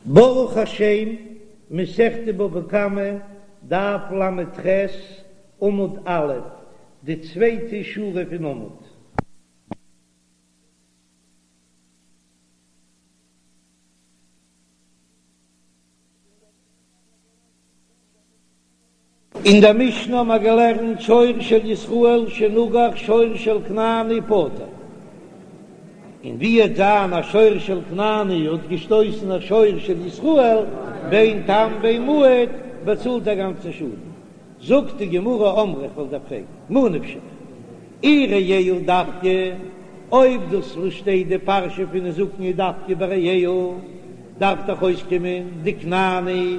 ברוך השם, מסכת בבא קמא, דף ל"ח, עמוד א', די צווייטע שורה פון עמוד. אין דער משנה האבן מיר געלערנט שור של ישראל שנגח שור של כנעני פטור, און ווי וועט זיין א שור של כנעני האט געשטויסן א שור של ישראל, בין תם בין מועד, באצאלט א גאנצן שאדן. זאגט די גמרא אמרי איך וועל דיר פרעגן, מה נפשך, אי רעהו דווקא, אויב דאס וואס שטייט די פרשה פון נזקין איז דווקא ביי רעהו, דארף דאך אויסקומען די כנעני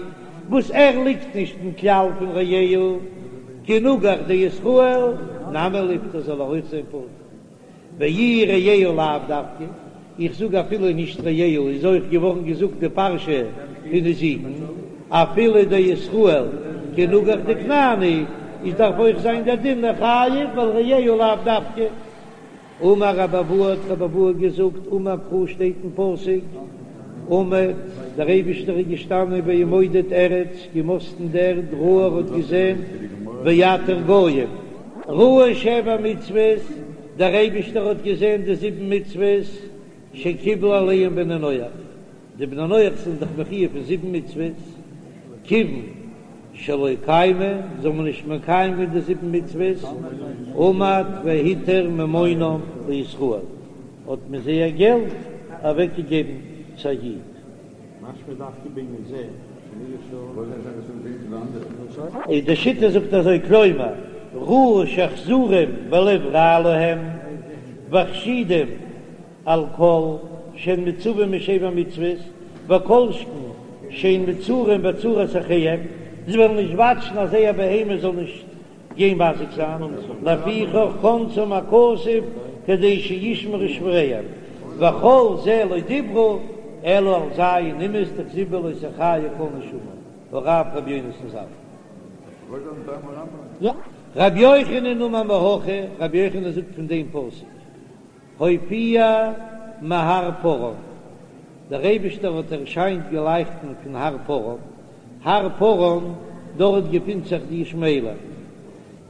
וואס ער ליגט נישט אין כלל פון רעהו, כי נגח דישראל נמי ליפטר זאל ער אויך זיין פטור. ואי רעהו לאו דווקא, איך זאג אפילו נישט רעהו איז אויך געווארן געזאגט די פרשה פון נזיקין, אפילו דישראל כי נגח דכנעני איז דארף אויך זיין דער דין חייב ווייל רעהו לאו דווקא. אמר רבי אבהו האט רבי אבהו געזאגט אמר קרא שטייט אין פסוק עמד דער אייבישטער איז געשטאנען וימודד ארץ געמאסטן די ערד ראה ער האט געזען ויתר גוים ראה שבע מצוות דער אייבישטער האט געזען די זיבן מצוות שקיבלו עליהם בני נח די בני נח זענען דאך מחיוב פון זיבן מצוות, כיוון שלא קיימו, זיי האבן נישט מקיים געווען די זיבן מצוות, עמד והתיר ממונם לישראל, האט מען זייער געלט אוועק געגעבן צו א איד. איז די שיטה זאגט אזוי כלומר ראה שאכזרים ולב רע להם וחשודים על כל שהן מצווים משבע מצוות, וכל שכן שהן מצרים בצרת אחיהם, זיי וועלן נישט וואטשן אז זייער בהמה זאל נישט גיין מזיק זיין, לפיכך קנסם הכתוב כדי שישמרו שווריהם, וכל זה לא דיברו אלא על ז' אומות דכתיב בהו לא תחיה כל נשמה, הרב רבי יונתן ז"ל. רבי יוחנן אמר מהכא, רבי יוחנן זאגט פון דעם פסוק. הופיע מהר פארן, דער אייבישטער האט ערשיינט געלייכטן פון הר פארן, הר פארן, דארט געפינט זיך די ישמעאלים,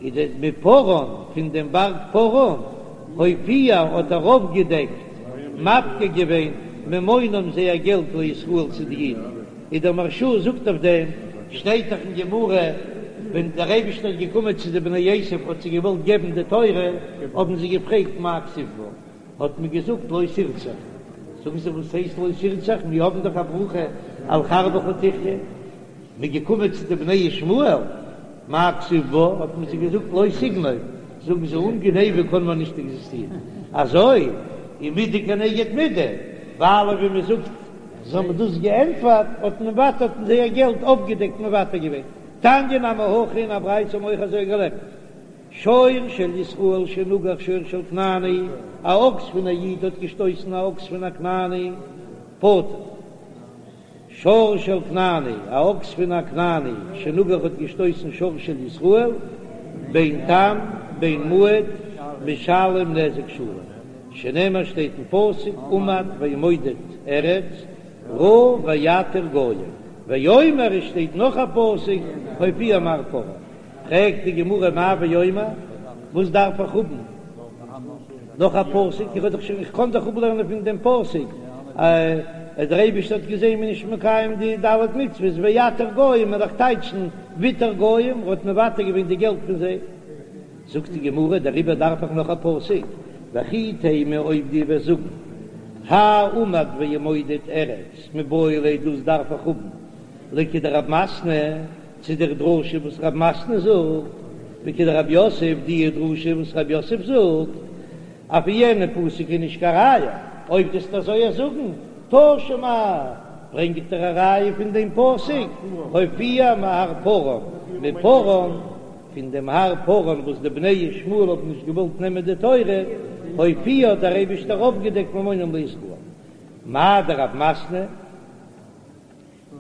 איז דער מפארן, פון דעם בארג פארן, הופיע האט ער אויפגעדעקט, מפקיר געווען, ממונם זייער געלט לישראל צו די אידן, איז דער מהרש"א זאגט אויף דעם, שטייט דאך אין גמרא, ווען דער אייבישטער איז געקומען צו די בני עשו האט זיי געוואלט געבן די תורה, האבן זיי געפרעגט מה כתיב בה, האט מען געזאגט לא תרצח, זאגן זיי וואס הייסט לא תרצח, מיר האבן דאך א ברכה על חרבך תחיה, מ'איז געקומען צו די בני ישמעאל, מה כתיב בה, האט מען זיי געזאגט לא תגנוב, זאגן זיי אן גניבה קען מען נישט עקזיסטירן, אזוי איז מידה כנגד מידה, ווייל ווי מען זאגט זיי האבן דאס געענטפערט, האט מען ווייטער האט מען זייער געלט אויפגעדעקט מוותר געווען. תניא נמי הכי אין א ברייתא האבן אויך אזוי געלערנט, שור של ישראל שנגח שור של כנעני, א אקס פון א איד האט געשטויסן א אקס פון א כנעני, פטור. שור של כנעני, א אקס פון א כנעני שנגח האט געשטויסן שור של ישראל, בין תם בין מועד, משלם נזק שלם, שנאמר שטייט אין פסוק עמד וימודד ארץ ראה ויתר גוים, ויאמר עס שטייט נאך א פסוק הופיע מהר פארן, פרעגט די גמרא מאי ויאמר, וואס דארף איך האבן נאך א פסוק, איך האב דאך שוין איך קען דאך אפלערנען פון דעם פסוק אז דער אייבערשטער האט געזען מ'איז נישט מקיים די ד' מצוות ויתר גוים וועל איך טייטשן ויתר גוים האט מוותר געווען די געלט פון זיי. זאגט די גמרא, דעריבער דארף איך נאך א פסוק, וכי תימא אויב דו וועסט זאגן, האי עמד וימודד ארץ מיבעי ליה דאס דארף איך האבן לכדרב מתנה, צו דער דרשה וואס רב מתנה זאגט, וכדרב יוסף, די דרשה וואס רב יוסף זאגט, אויף יענע פסוק איז נישט קיין ראיה, אויב דו וועסט אזוי זאגן, תא שמע, ברענג איך דיר א ראיה פון דעם פסוק, הופיע מהר פארן, מפארן. פון דעם הר פארן וואס די בני ישמעאל האבן נישט געוואלט נעמען די תורה, הופיע האט דער אייבישטער אויפגעדעקט ממונם לישראל. מאי דרב מתנה?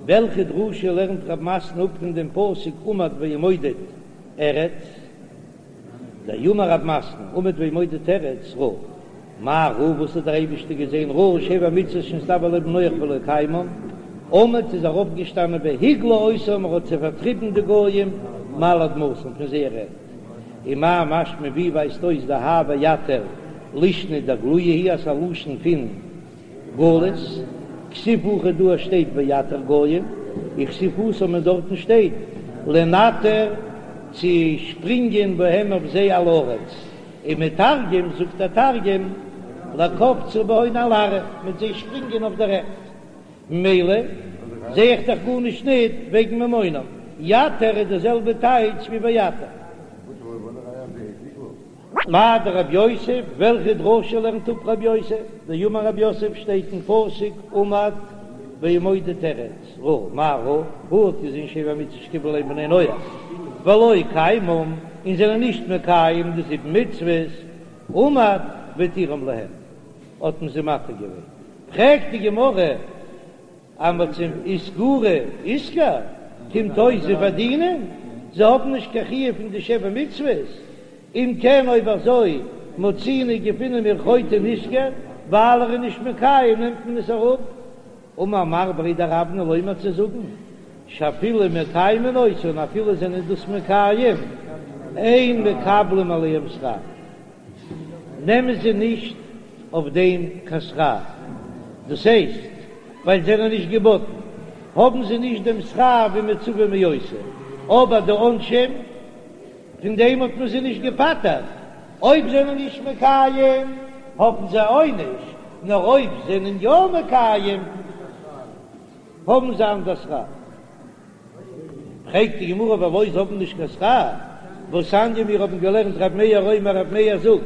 וועלכע דרשה לערנט רב מתנה אפ פון דעם פסוק עמד וימודד ארץ? דאמר רב מתנה עמד וימודד ארץ ראה. מה ראה וואס האט דער אייבישטער געזען ראה שבע מצוות שנצטוו עליהן בני נח ולא קיימן. עמד איז ער אויפגעשטאנען והגלה אותם ער האט זיי פארטריבן די גוים מעל אדמתם פון זייער ערד. ומאי משמע ווי ווייזט אויס דהאי ויתר לישנא דגלויי הוא אז ס'איז א לשון פון גלות, כתיב הכא דא שטייט ויתר גוים, וכתיב התם און דארטן שטייט לנתר צו שפרינגען בהם אויף זיי על הארץ, ומתרגם זאגט דער תרגום לקפצא בהון על ארעא מיט זיי שפרינגען אויף דער ערד, ממילא זע איך דאך גארנישט ניט וועגן ממונם, יתר איז די זעלבע טייטש ווי ויתר. מאי דרב יוסף, וועלכע דרשה לערנט אפ רב יוסף? דאמר רב יוסף שטייט אין פסוק עמד וימודד ארץ ראה, מה ראה? ראה האט געזען שבע מצוות שקיבלו עליהם בני נח ולא קיימום און זענען נישט מקיים די זיבן מצוות, עמד והתירם להם האט מען זיי מתיר געווען, פרעגט די גמרא אז מ'האט זיי איתגורי איתגר, קומט אויס זיי פארדינען, זיי האבן נישט קיין חיוב פון די שבע מצוות, אם כן אויב אזוי מצינו געפינען מיר חוטא נשכר, ווייל ער איז נישט מקיים נעמט מען עס אראפ. אמר מר בריה דרבנא לומר צו זאגן שאפילו מקיימין אותן אפילו זענען דאס מקיים אין מקבלים עליהם שכר. נעמען זיי נישט אויף דעם קיין שכר, דאס הייסט ווייל זיי זענען נישט געבאטן האבן זיי נישט דעם שכר ווי מצווה ועושה, אבער די עונשים פון דעם האט מען זיי נישט געפטר'ט, אויב זענען נישט מקיים האבן זיי עונש, נאר אויב זענען יא מקיים האבן זיי אנדער שכר. פרעגט די גמרא ולא זיי האבן נישט קיין שכר, והתניא מיר האבן געלערנט ר' מאיר אומר ר' מאיר זאגט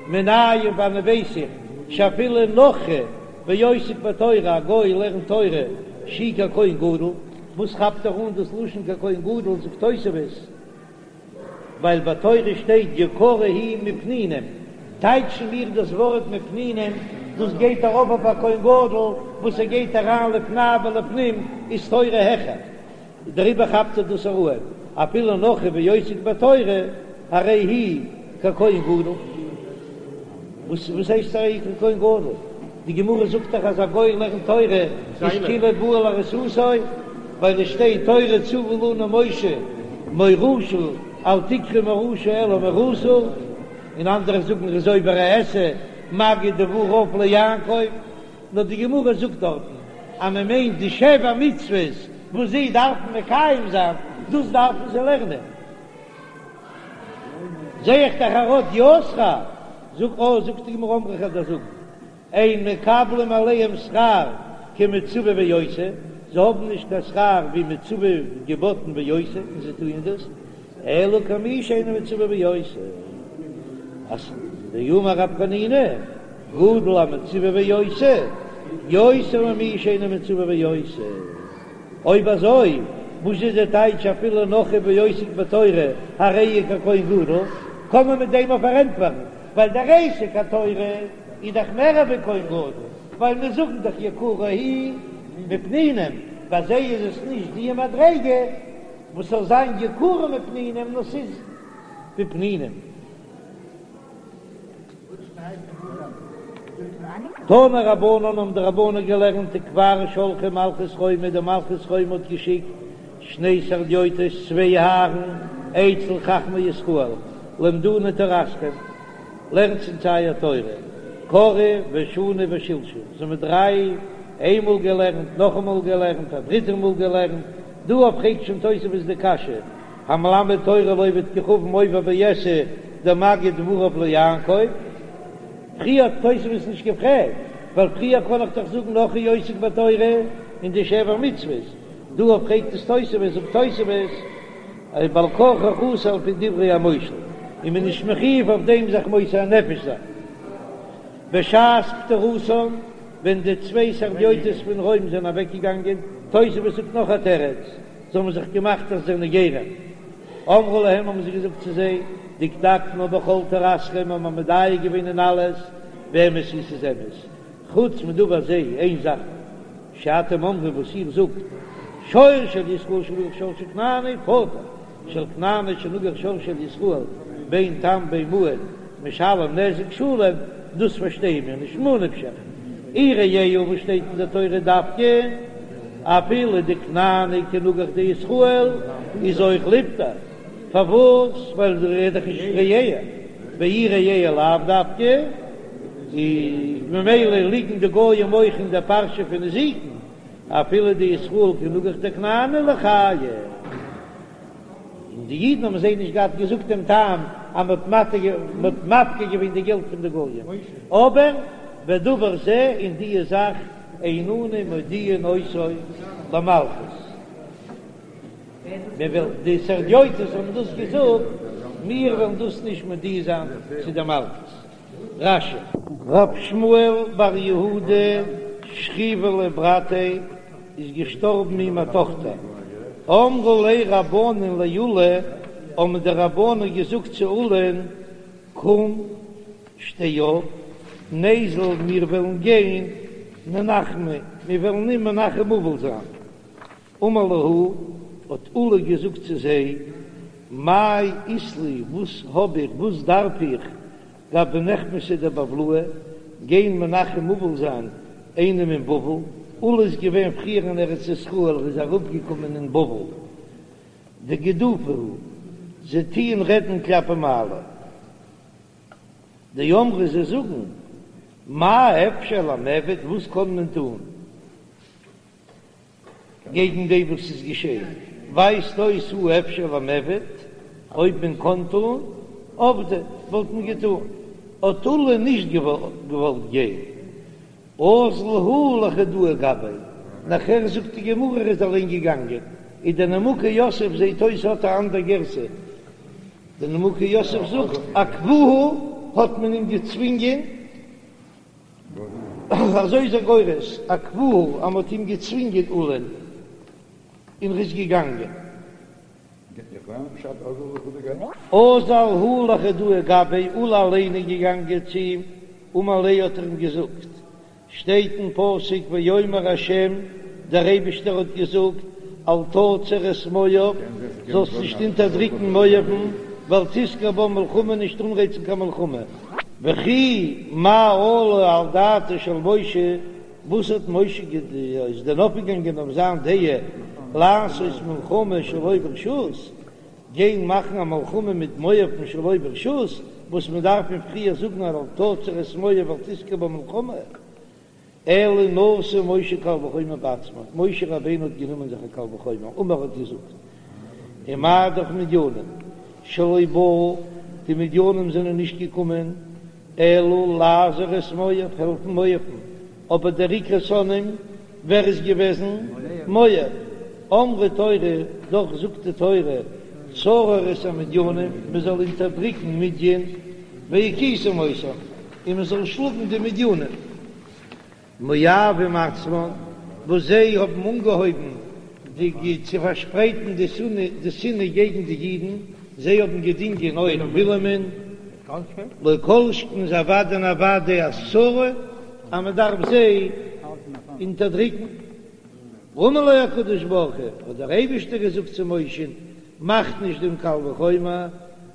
מנין פון וואנען ווייס איך שאפילו נכרי ועוסק בתורה א גוי לערנט תורה שהוא ככהן גדול, וואס כאפט ער אן דאס לשון ככהן גדול זאגט תוספות ווייל ביי תורה שטייט יקרה היא מפנינים, טייטשן מיר דאס ווארט מפנינים, דאס גייט ארויף אויף א כהן גדול וואס ער גייט אריין לפני ולפנים איז תורה העכער, דעריבער כאפט ער דאס ארום, אפילו נכרי ועוסק בתורה הרי הוא ככהן גדול. וואס וואס הייסט הרי הוא ככהן גדול? די גמרא זאגט דאך אז א גוי לערנט תורה איז כאילו בא על ארוסתו, ווייל עס שטייט תורה צוה לנו משה מאורשה אל תקרי מאורשה אלא מאורסה, און אנדערע זאגן ער איז עובר א עשה מגיד דבריו ליעקב, נאר די גמרא זאגט דארטן אז מען מיינט די שבע מצוות וואס זיי דארפן מקיים זיין, דאס דארפן זיי לערנען. זע איך דאך ער האט יא שכר, זאג אה, זאגט די גמרא אמרי כ'וועל דיר זאגן, אין מקבלים עליהם שכר כמצווה ועושה, זיי האבן נישט קיין שכר ווי מצווה געבאטן ועושה און זיי טוען דאס, אלא כמי שאינו מצווה ועושה, אז דאמר רב חנינא, גדול המצווה ועושה, יותר ממי שאינו מצווה ועושה. אויב אזוי, וואס איז די טייטש אפילו נכרי ועוסק בתורה הרי הוא ככהן גדול? קען מען מיט דעם אויך פארענטפערן, ווייל דער עסק התורה איז דאך מער ווי כהן גדול, ווייל מיר זאגן דאך יקרה היא מפנינים, ביי זיי איז עס נישט די מדריגה וואס זאל זיין יקרה מפנינים, נאר ס'איז ווי פנינים. תנו רבנן האבן די רבנן געלערנט וכבר שלחה מלכות רומי, די מלכות רומי האט געשיקט שני סרדיוטות צוויי הארן אצל חכמי ישראל למדונו תורתכם לערנטס אונז אייער תורה קראו ושנו ושלשו זיי האבן דריי איינמאל געלערנט נאכאמאל געלערנט א דריטע מאל געלערנט דא פרעגט שוין תוספות די קשיא המלמד תורה לעובד כוכבים עובר בעשה דמגיד דבריו ליעקב. פריער האט תוספות נישט געפרעגט, ווייל פריער קען איך דאך זאגן נכרי עוסק בתורה אין די שבע מצוות, דא פרעגט עס תוספות, זאגט תוספות אז בעל כרחך אסור על פי דברי המושל, און מען איז נישט מחיוב אויף דעם זיך מוסר נפש זיין. בשעת פטירתן, ווען די צוויי סרדיוטות פון רוים זענען אוועקגעגאנגען, תוספות זאגט נאך א תירוץ, זיי האבן זיך געמאכט אז זיי זענען גרים. אמרו להם האבן זיי געזאגט צו זיי, דקדקנו בכל תורתכם האבן מיר מדייק געווען אין אלעס, ואמת היא ס'איז אמת, חוץ מדבר זה איין זאך שאתם אומרים וואס איר זאגט, שור של ישראל שנגח שור של כנעני פטור, של כנעני שנגח שור של ישראל בין תם בין מועד משלם נזק שלם, דאס פארשטייען מיר נישט, ממה נפשך, אי רעהו וואס שטייט אין די תורה דווקא. אפילו די כנעני כי נגח דישראל איז אויך ליפטר, פארוואס? ווייל ער איז דאך נישט רעהו, ואי רעהו לאו דווקא, איז ממילא ליגן די גוים אויך אין די פרשה פון נזיקין, אפילו דישראל כי נגח דכנעני ליחייב. און די אידן האבן זיי נישט געהאט געזאגט דעם טעם אז מען האט מפקיר געווען די געלט פון די גויים, אבער ודבר זה און די זאך אין אנו מודיעין אותו למלכות, מען וועל די סרדיוטות האבן דאס געזאגט, מיר וועלן דאס נישט מודיע זיין צו די מלכות. רש"י. רב שמואל בר יהודה שכיבא ליה ברתיה איז געשטארבן אים א טאכטער, אמרו ליה רבנן לעולא, האבן די רבנן געזאגט צו עולא'ן, קום שטיי אויף, ניזיל מיר וועלן גיין ננחמיה, מיר וועלן אים מנחם אבל זיין. אמר להו, האט עולא געזאגט צו זיי, מאי אית לי, וואס האב איך, וואס דארף איך, גבי נחמתא דבבלאי, גיין מנחם אבל זיין איינעם אין בבל, עולא איז געווען פריער אין ארץ ישראל, ער איז אראפגעקומען אין בבל, דגידופא הוא, זיי טוען רעדן כלפי מעלה, דאמרי זיי זאגן, מה אפשר למעבד, וואס קען מען טון? געגן דעם וואס איז געשען, ווייזט אויס הא אפשר למעבד, אויב מען קען טון, עבדי, וואלט מען געטון, האט עולא נישט געוואלט גיין, אזל הוא לחודאי גביה, נאכער זאגט די גמרא ער איז אליין געגאנגען, איז דער נימוקי יוסף זעהט אויס האט א אנדער גירסא, דער נימוקי יוסף זאגט עכבוהו האט מען אים געצווינגען. אזוי איז ער גורס, עכבוהו אז מ'האט אים געצווינגען עולא'ן און ר'איז געגאנגען. אזל הוא לחודאי גביה, עולא אליין איז געגאנגען צו אים, אמר ליה האט ער אים געזאגט, שטייט אין פסוק ויאמר ה', דער אייבישטער האט געזאגט, אל תצר את מואב, זאלסט נישט אונטערדריקן מואב'ן, ואל תתגר בם מלחמה, נישט אנרייצן קיין מלחמה. וכי מה עלה על דעתו של משה, וואס האט משה איז דען אויפגעגאנגען אויף זיין דעה לעשות מלחמה שלא ברשות, גיין מאכן א מלחמה מיט מואב'ן שלא ברשות, וואס מען דארף אים פריער זאגן אל תצר את מואב ואל תתגר בם מלחמה. אלא נשא משה קל וחומר בעצמו, משה רבינו האט גענומען זיך א קל וחומר, אמר האט געזאגט, ומה דאך מדינים שלא באו, די מדינים זענען נישט געקומען, אלא לעזור את מואב, העלפן מואב'ן, אבער דער עיקר שונאים ווער איז געוועזן? מואב, אמרה תורה, דאך זאגט די תורה, צרור את המדינים, מען זאל אונטערדריקן מדין, והכיתם אותם, און מען זאל שלאגן די מדינים. מואבים עצמן, וואס זיי האבן אנגעהויבן די צו פארשפרייטן די שנאה די שנאה געגן די אידן, זיי האבן געדינגען אויך בלעמ'ן, לא כל שכן איז אוודאי און אוודאי אז צרה אז מען דארף זיי אונטערדריקן. אמר לו הקדוש ברוך הוא, האט דער אייבערשטער געזאגט צו משה'ן, מאך נישט דעם קל וחומר,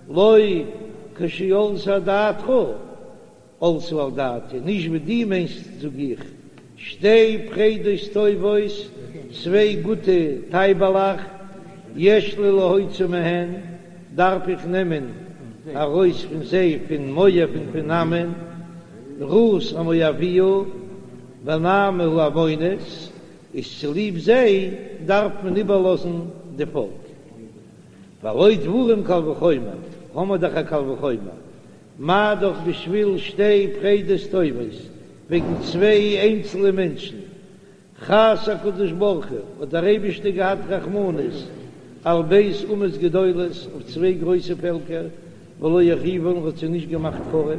לא כשעלתה על דעתך, עלתה על דעתי, נישט ווי דו מיינסט זאג איך, שתי פרדות טובות, צוויי גוטע טייבעלעך, יש לי להוציא מהן, דארף איך נעמען ארויס פון זיי פון מואב און פון עמון, רות המואביה ונעמי העמונית, איז צוליב זיי דארף מען איבערלאזן די פאלק. והלא דברים קל וחומר, האמער דאך א קל וחומר, מה דאך בשביל שתי פרדות טובות, וועגן צוויי איינצלע מענטשן, חס הקדוש ברוך הוא, האט דער אייבישטער געהאט רחמנות על ב' אומות גדולות, אויף צוויי גרויסע פעלקער, ולא החריבן, האט זיי נישט געמאכט חרוב.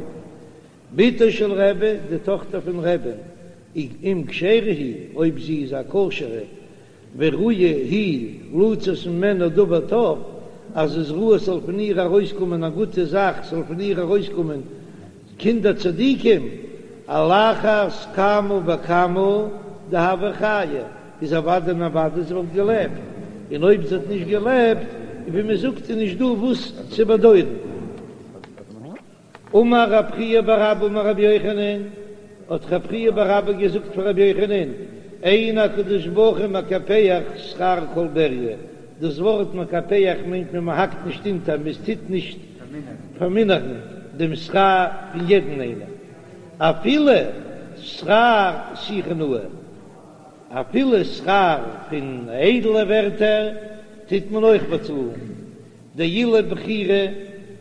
בתו של רבי, די טאכטער פון רבי'ן, אם כשרה היא, אויב זי איז א כשר'ע, וראויה היא לצאת ממנה דבר טוב, אז איז ראוי ס'זאל פון איר ארויסקומען א גוטע זאך, ס'זאל פון איר ארויסקומען קינדער צדיקים, על אחת כמה וכמה דהוה חיה, איז אוודאי און אוודאי זי וואלט געלעבט, און אויב זי האט נישט געלעבט, ווי מ'זאגט איז נישט דא וואס צו באדויערן. אמר רב חייא בר אבא אמר רבי יוחנן, האט רב חייא בר אבא געזאגט פאר רבי יוחנן, אין הקדוש ברוך הוא מקפח שכר כל בריה, דאס ווארט מקפח מיינט מען מ'האקט נישט אונטער, מען טוט נישט פארמינערן דעם שכר פון יעדן איינעם, אפילו שכר שיחה נאה, אפילו שכר פון איידלע ווערטער טוט מען אויך באצאלן. דאילו בכירה,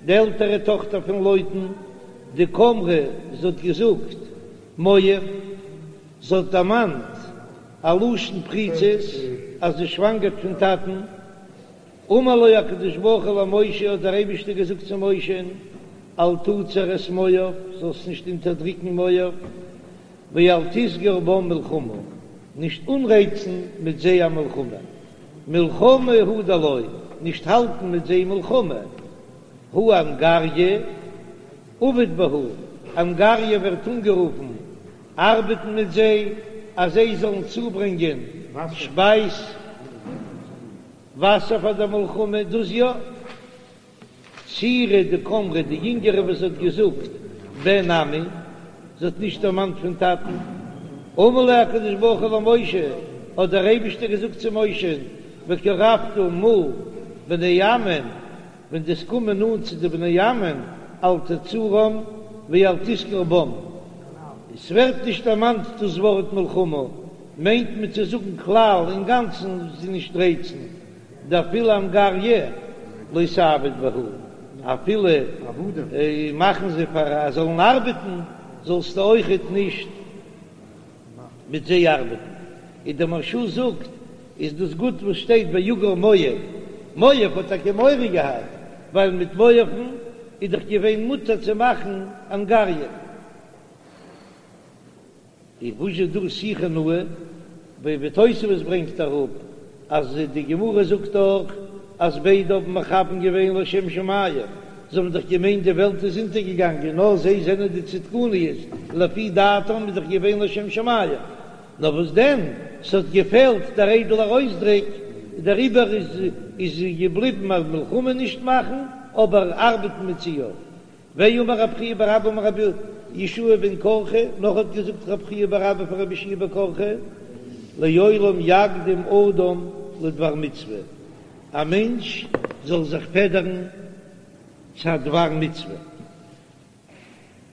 די עלטערע טאכטער פון לוטן, דקאמרה, זי האט געזאגט, מואב, זי האט דערמאנט א לשון פריצות אז זי שוואנגערט פון טאטן, אמר לו הקדוש ברוך הוא למשה, האט דער אייבישטער געזאגט צו משה'ן, אל תצר את מואב, זאלסט נישט אונטערדריקן מואב, ואל תסגר בם מלחמה, נישט אנרייצן מיט זיי א מלחמה, מלחמה הוא דלא, נישט האלטן מיט זיי מלחמה, הא אנגריא עביד בהו, אנגריא ווערט אנגערופן ארבעטן מיט זיי אז זיי זאלן צוברענגען שפייז, וואסער פאר דער מלחמה, דאס יא. צעירה דקאמרה, די יונגערע וואס האט געזאגט בן עמי, זי האט נישט דערמאנט פון טאטן. אמר ליה הקדוש ברוך הוא למשה, האט דער אייבישטער געזאגט צו משה'ן, וקרבת מול בני עמון, ווען דו וועסט קומען נאנט צו די בני עמון, אל תצורם ואל תסגר בם. עס ווערט נישט דערמאנט דאס ווארט מלחמה, מיינט מען צו זאגן כלל אינגאנצן זיי נישט רייצן. דאפילו אנגריא לא תעביד בהו, אפילו מאכן זיי פאר אז זאלן ארבעטן, זאלסטו אויכעט נישט מיט זיי ארבעטן. און דער מהרש"א זאגט, איז דאס גוט וואס שטייט ויגר מואב, מואב האט טאקע מורא געהאט, ווייל מיט מואב'ן איז דאך געווען מותר צו מאכן אנגריא. און וואס איז דא שיחה נאה, ווי תוספות ברענגט אראפ אז די גמרא זאגט דאך אז ביידע האבן מכוון געווען לשם שמים, זיי האבן דאך געמיינט די וועלט איז אונטערגעגאנגען נאר זיי זענען די צדקניות, לפי דעתם איז דאך געווען לשם שמים, נאר וואס דען ס'האט געפעלט דער איידעלער אויסדריק, דעריבער איז איז געבליבן אז מלחמה נישט מאכן אבער ארבעטן מיט זיי יא. ואמר רב חייא בר אבא אמר רבי יהושע בן קרחה, נאך האט געזאגט רב חייא בר אבא פון רבי יהושע בן קרחה, לעולם יקדים אדם לדבר מצוה, א מענטש זאל זיך פעדערן צו א דבר מצוה,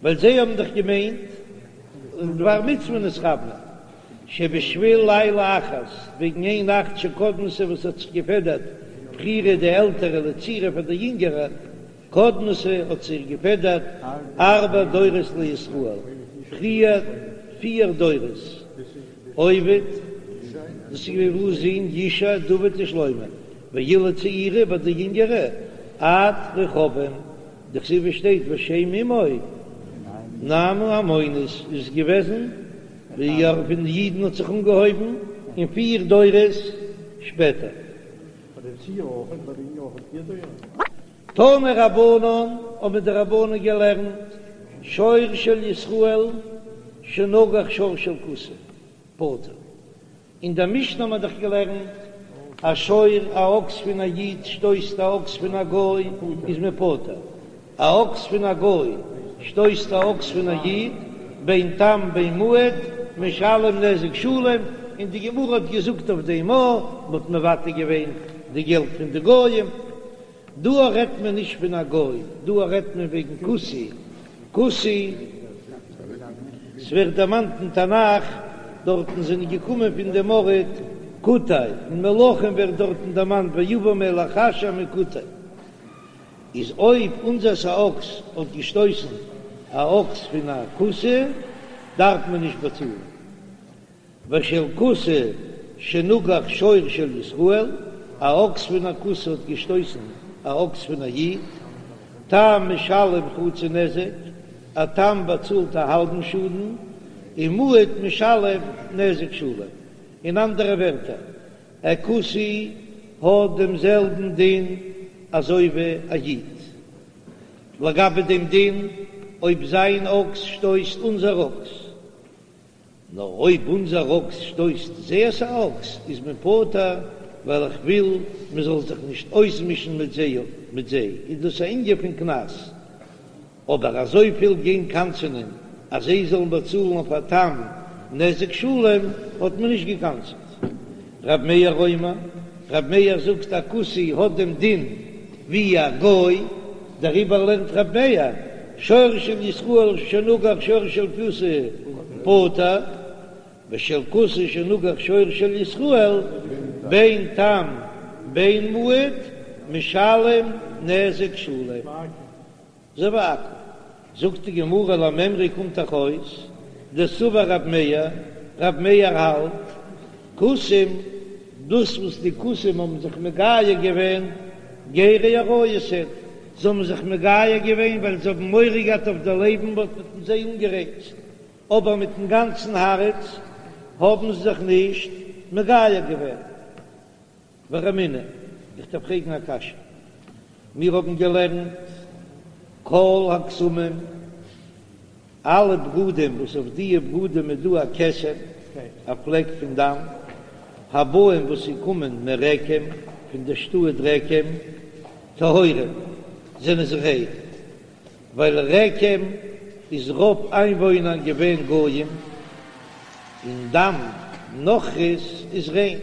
ווייל זיי האבן דאך געמיינט לדבר מצוה נתכוונו, שבשביל לילה אחת, וועגן איין נאכט שקדמתה וואס האט זיך געפעדערט בכירה די עלטערע לצעירה פאר די יונגערע, קדמתה האט זיך געפעדערט ארבע דורות לישראל, פריער פיר דורות, עובד, דאס איז געווען בועז זון ישי, דוד און שלמה, ואילו צעירה ביי די יונגערע עד רחבעם, דכתיב שטייט ושם אמו נעמה העמונית איז געוועזן ווי פון די אידן האט זיך אנגעהויבן און פיר דורות שפעטער. תנו רבנן, האבן די רבנן געלערנט, שור של ישראל שנגח שור של כותי, פטור. אין דער משנה האט מען דאך געלערנט, א שור, א אקס פון א איד שטויסט א אקס פון א גוי, איז מען פטור. א אקס פון א גוי שטויסט א אקס פון א איד, בין תם בין מועד, משלם נזק שלם, און די גמרא האט געזאגט אויף דעם א, מ'האט מוותר געווען די געלט פון די גויים. דא רעדט מען נישט פון א גוי, דא רעדט מען וועגן כותי, כותי, ס'ווערט דערמאנט אין תנך, דארטן זענען געקומען פון דעם ארט כותי, אין מלכים ווערט דארטן דערמאנט ויבא מלך אשור מכותי, איז אויב אונזערס א אקס האט געשטויסן א אקס פון א כותי דארף מען נישט באצאלן. ושל כותי שנגח שור של ישראל, א אקס פון א כותי האט געשטויסן א אקס פון א איד, תם משלם חצי נזק, א תם באצאלט א האלבן שאדן, און מועד משלם נזק שלם. אין אנדערע ווערטער, א כותי האט דעם זעלבן דין אזוי ווי א איד. לגבי דעם דין אויב זיין אקס שטויסט אונזער אקס, נאר אויב אונזער אקס שטויסט זייערס א אקס איז מען פטור, ווייל איך וויל מען זאל זיך נישט אויסמישן מיט זיי, מיט זיי איז דאס א ענין פון קנס, אבער אזויפיל גיין קנס'ענען אז זיי זאלן באצאלן אויף א תם. נזק שלם האט מען נישט געקנס'ט. רב מאיר אומר, רב מאיר זאגט א כותי האט דעם דין ווי א גוי, דעריבער לערנט רב מאיר, שור של ישראל שנגח שור של כותי פטור, ושל כותי שנגח שור של ישראל בין תם בין מועד משלם נזק שלם. אזוי ווי עכו"ם. זאגט די גמרא למימרא קומט דאך אויס דסבר רב מאיר, רב מאיר האלט כותים דאס וואס די כותים האבן זיך מגייר געווען גרי אריות הן, זיי האבן זיך מגייר געווען ווייל זיי האבן מורא געהאט אויף די לעבן וואס מ'האט זיי אנגערייצט, אבער מיטן גאנצן הארץ האבן זיי זיך נישט מגייר געווען. ורמינהו, איך דארף פרעגן א קשיא. מיר האבן געלערנט כל הכתמים, אלע בגדים וואס אויף דיע בגדים איז דא א כתם, א פלעק פון דם, הבאים וואס זיי קומען מרקם, פון די שטאט רקם, טהורים, זענען זיי ריין, ווייל רקם איז רוב איינוואוינער געווען גויים, און דם נכרית איז ריין,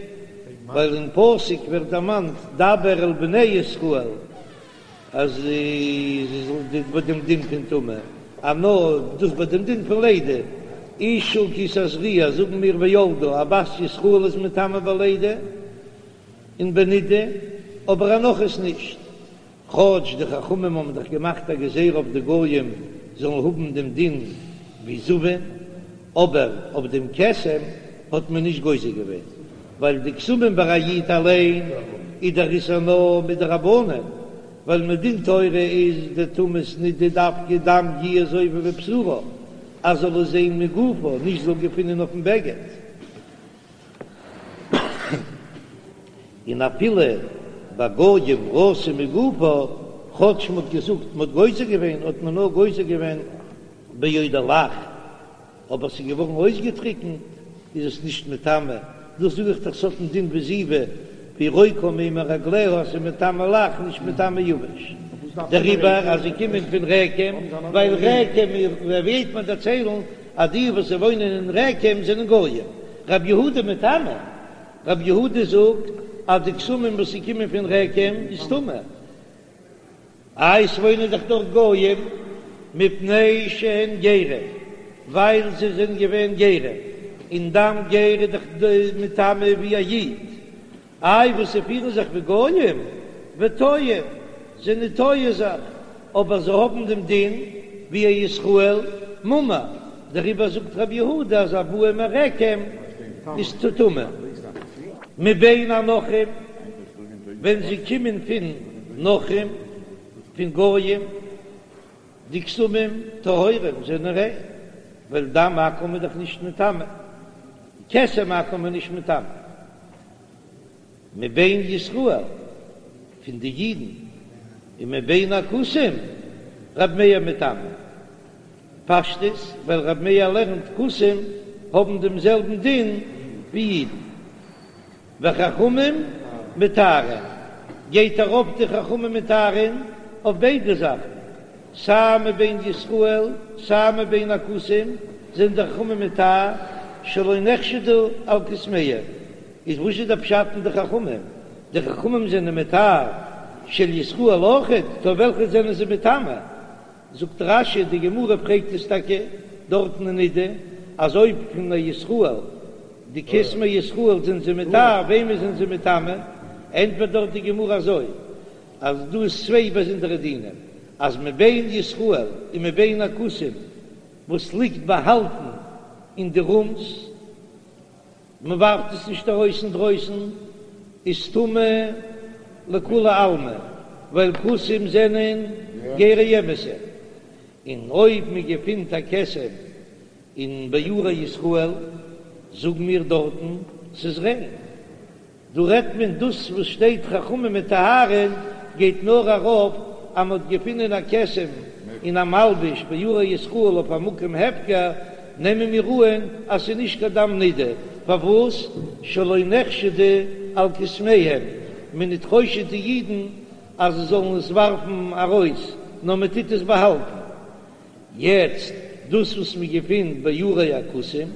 ווייל אין פסוק ווערט דערמאנט דבר אל בני ישראל אז זיי זאלן ביי דעם דין פון טומאה, אז נאר דאס ביי דעם דין פון לידה, אשה כי תזריע זאגן מיר וילדה, א בת ישראל איז מטמא בלידה און בנידה, אבער א נכרית נישט. כאטש די חכמים האבן דאך געמאכט א גזירה אויף די גויים זאלן האבן דעם דין ווי זבים, אבער אויף דעם כתם האט מען נישט גוזר געווען, ווייל די כתמים ביי א איד אליין איז דער איסור נאר מדרבנן, ווייל מדין תורה איז די טומאת נידה דווקא דם יהיה זובה בבשרה, אז זאל עס זען מגופה, נישט זאל געפינען אויפן בגד. און אפילו ביי גויים ראתה מגופה, כאטש מ'האט געזאגט מ'האט גוזר געווען, האט מען נאר גוזר געווען בעודה לח, אבער ס'איז געווארן אויסגעטריקנט איז עס נישט מטמא, דאס זאג איך דאך ס'האט דעם דין ווי זיבה והיא רוקה מימי רגליה אז ס'איז מטמא לח נישט מטמא יבש, דעריבער אז זיי קומען פון רקם, ווייל רקם וועט מען דערציילן אז די וואס וואוינען אין רקם זענען גויים, רב יהודה מטמא, רב יהודה זאגט אז די כתמים וואס ס'קומען פון רקם איז טמא, איי ס'וואוינען דאך דארט גויים, מפני שהן גרים, ווייל זיי זענען געווען גרים, און דם גר איז דאך מטמא ווי א איד, איי וואס זיי פירן זיך ווי גויים, וטועים, זענען טועה זיך, אבער זיי האבן דעם דין ווי א ישראל מומר, דעריבער זאגט רבי יהודה אז הבאים מרקם איז טמא. מבין הנכרים, ווען זיי קומען פון נכרים, פון גויים, די כתמים טהורים זענען ריין, ווייל דם עכו"ם איז דאך נישט מטמא, כתם עכו"ם איז נישט מטמא. מבין ישראל, פון די אידן, און מבין הכותים, רב מאיר מטמא. פשטות, ווייל רב מאיר לערנט כותים האבן דעם זעלבן דין ווי אידן. וחכמים מטהרין, גייט ארויף די חכמים מטהרין אויף ביידע זאכן, סיי מבין ישראל סיי מבין הכותים זענען די חכמים מטהר שלא נחשדו על כתמיהם, איז וואס איז די פשט אין די חכמים? די חכמים זענען מטהר של ישראל אויכעט, טא וועלכע זענען זיי מטמא? זאגט רש"י, די גמרא פרעגט עס טאקע דארטן אין נידה, אז אויב פון א ישראל, די כתמי ישראל זענען זיי מטהר, וועמען זענען זיי מטמא? ענטפערט דארט די גמרא אזוי, אז דא איז צוויי באזונדערע דינים, אז מבין ישראל און מבין הכותים וואס ליגט באהאלטן אין די רומס, מען ווארפט עס נישט ארויס אינדרויסן, איז טמא לכולי עלמא, ווייל כותים זענען גרי אמת'ע, און אויב מען געפינט א כתם אין בערי ישראל, זאגן מיר דארטן ס'איז ריין. דא רעדט מען דאס וואס שטייט חכמים מטהרין גייט נאר ארויף אז מ'האט געפינען א כתם אין א מלבוש בערי ישראל אויף א מקום הפקר, נעמען מיר אהן אז ס'איז נישט קיין דם נידה, פארוואס שלא נחשדו על כתמיהם, מען ניט חושד די אידן אז זיי זאלן עס ווארפן ארויס, נאר מען טוט עס באהאלטן. יעצט דאס וואס מען געפינט בערי הכותים.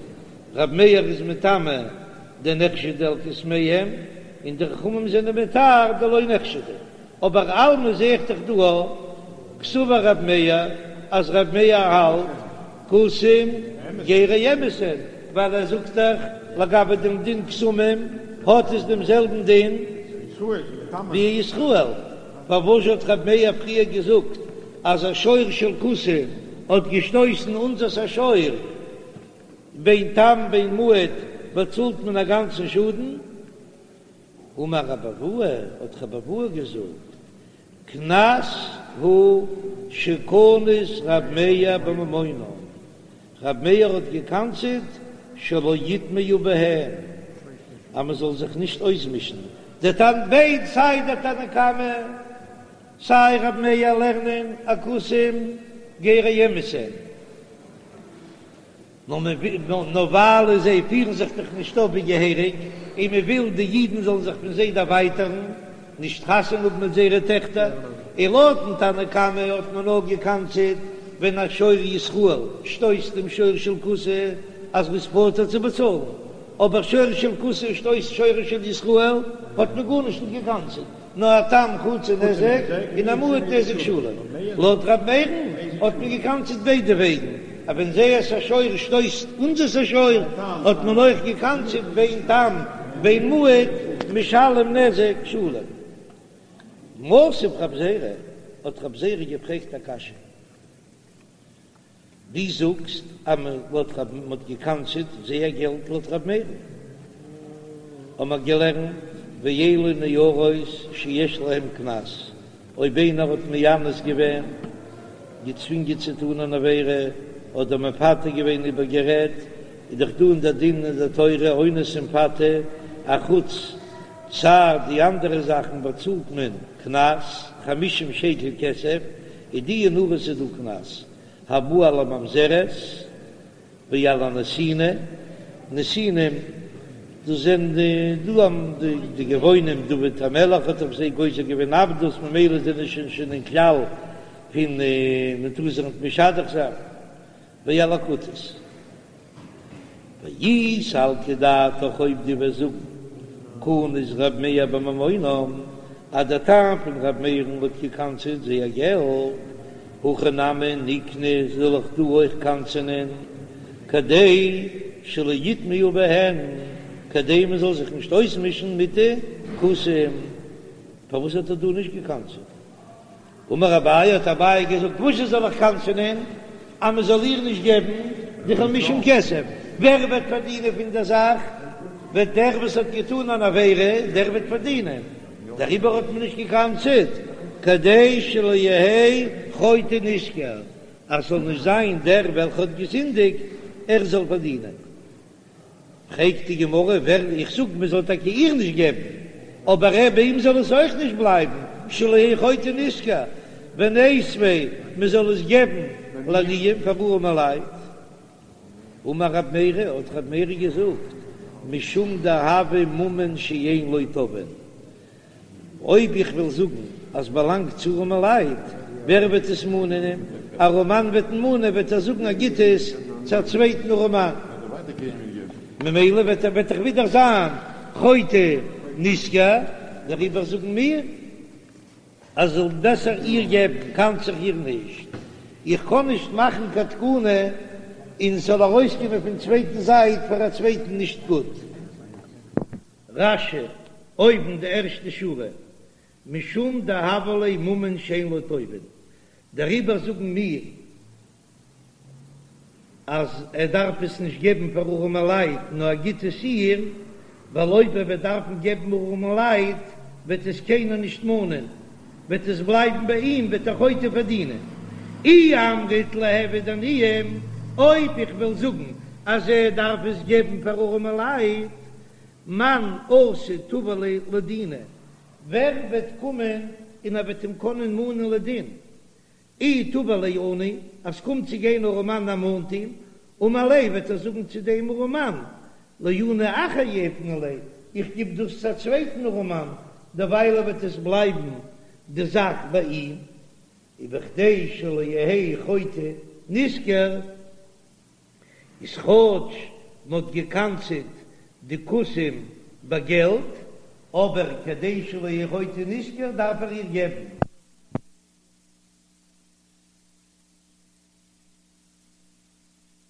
ר' מאיר איז מטמא דנחשדו על כוסמיהם, און די חכמים זענען מטהר דלא נחשדו. אבער אלמא זעה איך דאך דא קסבר ר' מאיר אז ר' מאיר האלט כותים גרי אמת הן, ווייל ער זאגט דאך לגבי דעם דין כתמים האט עס דעם זעלבן דין ווי ישראל, פארוואס האט ר' מאיר פריער געזאגט אז א שור של כותי האט געשטויסן אונזערס א שור, בין תם בין מועד באצאלט מען א גאנצן שאדן? אמר רבי אבהו, האט רבי אבהו געזאגט, קנס הוא שקנס רב מאיר בממונם, רב מאיר האט געקנס'עט שלא יטמעו בהן, אז מען זאל זיך נישט אויסמישן, די תנ ב סיי דער תנא קמא סיי רב מאיר לערנען אז כותים גרי אמת הן. נאר מען וויל, נאר ווייל זיי פירן זיך דאך נישט אויף ווי געהעריג, און מען וויל די אידן זאלן זיך פון זיי דערווייטערן, נישט חתונה האבן מיט זייערע טעכטער, און לויטן תנא קמא האט מען נאר געקנס'עט ווען א שור ישראל שטויסט דעם שור של כותי אז מ'איז פטור צו באצאלן, אבער שור של כותי שטויסט שור של ישראל האט מען גארנישט נישט געקנס'עט. נאר א תם חצי נזק און א מועד נזק שלם. לויט ר' מאיר'ן האט מען געקנס'עט ביידע וועגן, אז ווען זייערס א שור שטויסט אונזערס א שור האט מען אויך געקנס'עט בין תם בין מועד משלם נזק שלם. מתיב רב זירא, האט רב זירא געפרעגט א קשיא. דו זאגסט אז מען לויט רב מען האט געקנס'עט זייער געלט לויט רב מאיר'ן האבן מיר געלערנט ואלו נערות שיש להם קנס אויב איינער האט מאנס געווען געצווינגען צו טון אן עבירה אדער מפתה געווען איבערגערעדט איז דאך דא אין דער דין אין דער תורה אונס און מפתה אחוץ צער די אנדערע זאכן באצאלט מען קנס חמישים שקל כסף איז די נערות איז דא קנס הבא על הממזרת ועל הנתינה, נתינים, דאס זענען די דא די גבעונים, דוד המלך האט אויף זיי גוזר געווען עבדות, ממילא זענען שוין שוין אין כלל פון מען טאר זיך נישט משדך זיין, ועל הכותית. ואי סלקא דעתך אויב דו וועסט זאגן קנס ר' מאיר בממונם אז דער טעם פון ר' מאיר'ן האט געקנס'עט זייער געלט, הכא נמי נקנוס זאל איך דא אויך קנס'ענען כדי שלא יטמעו בהן כדי מען זאל זיך נישט אויסמישן מיט די כותים, פארוואס האט ער דא נישט געקנס'עט? אמר אביי, האט אביי געזאגט, וואס זאל איך קנס'ענען אז מען זאל איר נישט געבן די חמישים כסף? ווער וועט פארדינען פון דער זאך? וועט דער וואס האט געטאן אן עבירה, דער וועט פארדינען, דעריבער האט מען נישט געקנס'עט, כדי שלא יהא חוטא נשכר, אז ס'זאל נישט זיין דער וועלכער האט געזינדיגט, ער זאל פארדינען. פרעגט די גמרא, ווער איך זאג מען זאל טאקע איר נישט געבן, אבער ער ביי אים זאל עס אויך נישט בלייבן, שלא יהא חוטא נשכר, וניתביה מען זאל עס געבן לעניים פאר ארעמע לייט. אמר רב מרי, האט רב מרי געזאגט, משום דהוי ממון שאין לו תובעין, אויב איך וועל זאגן אז באלאנגט צו ארעמע לייט, ווער וועט עס מאנען? א ארעמאן וועט מאנען, וועט ער זאגן ער גיט עס צו א צווייטן ארעמאן, ממילא וועט ער וועט דאך ווידער זיין חוטא נשכר, דעריבער זאגן מיר אז זאל בעסער איר געבן, קנס איך איר נישט, איך קען נישט מאכן קיין תקנה און ס'זאל ארויסקומען פון צווייטן זייט פאר א צווייטן נישט גוט. רש"י, אויבן די ערשטע שורה, משום דהוה ליה ממון שאין לו תובעין, דעריבער זאגן מיר אז ער דארף עס נישט געבן פאר ארעמע לייט נאר ער גיט עס איר, ווייל אויב ער וועט דארפן געבן ארעמע לייט וועט עס קיינער נישט מאנען, וועט עס בלייבן ביי אים וועט דער חוטא פארדינען. אי אמרת ליהוו עניים, אויב איך וועל זאגן אז ער דארף עס געבן פאר ארעמע לייט, מאן אתי תבע ליה לדינא, ווער וועט קומען און ער וועט אים קענען מאנען לדין? אי תבע ליה עני, אז ס'קומט צו גיין ארעמאן ער מאנט אים, אמר ליה וועט ער זאגן צו דעם ארעמאן, לעני אחר יהיבנא ליה, איך גיב דאס צו א צווייטן ארעמאן, דערוויילע וועט עס בלייבן די זאך ביי אים, ובכדי שלא יהא חוטא נשכר, איז כאטש. מען האט גע'קנס'עט די כותים ביי געלט, אבער כדי שלא יהא חוטא נשכר דארף ער איר געבן.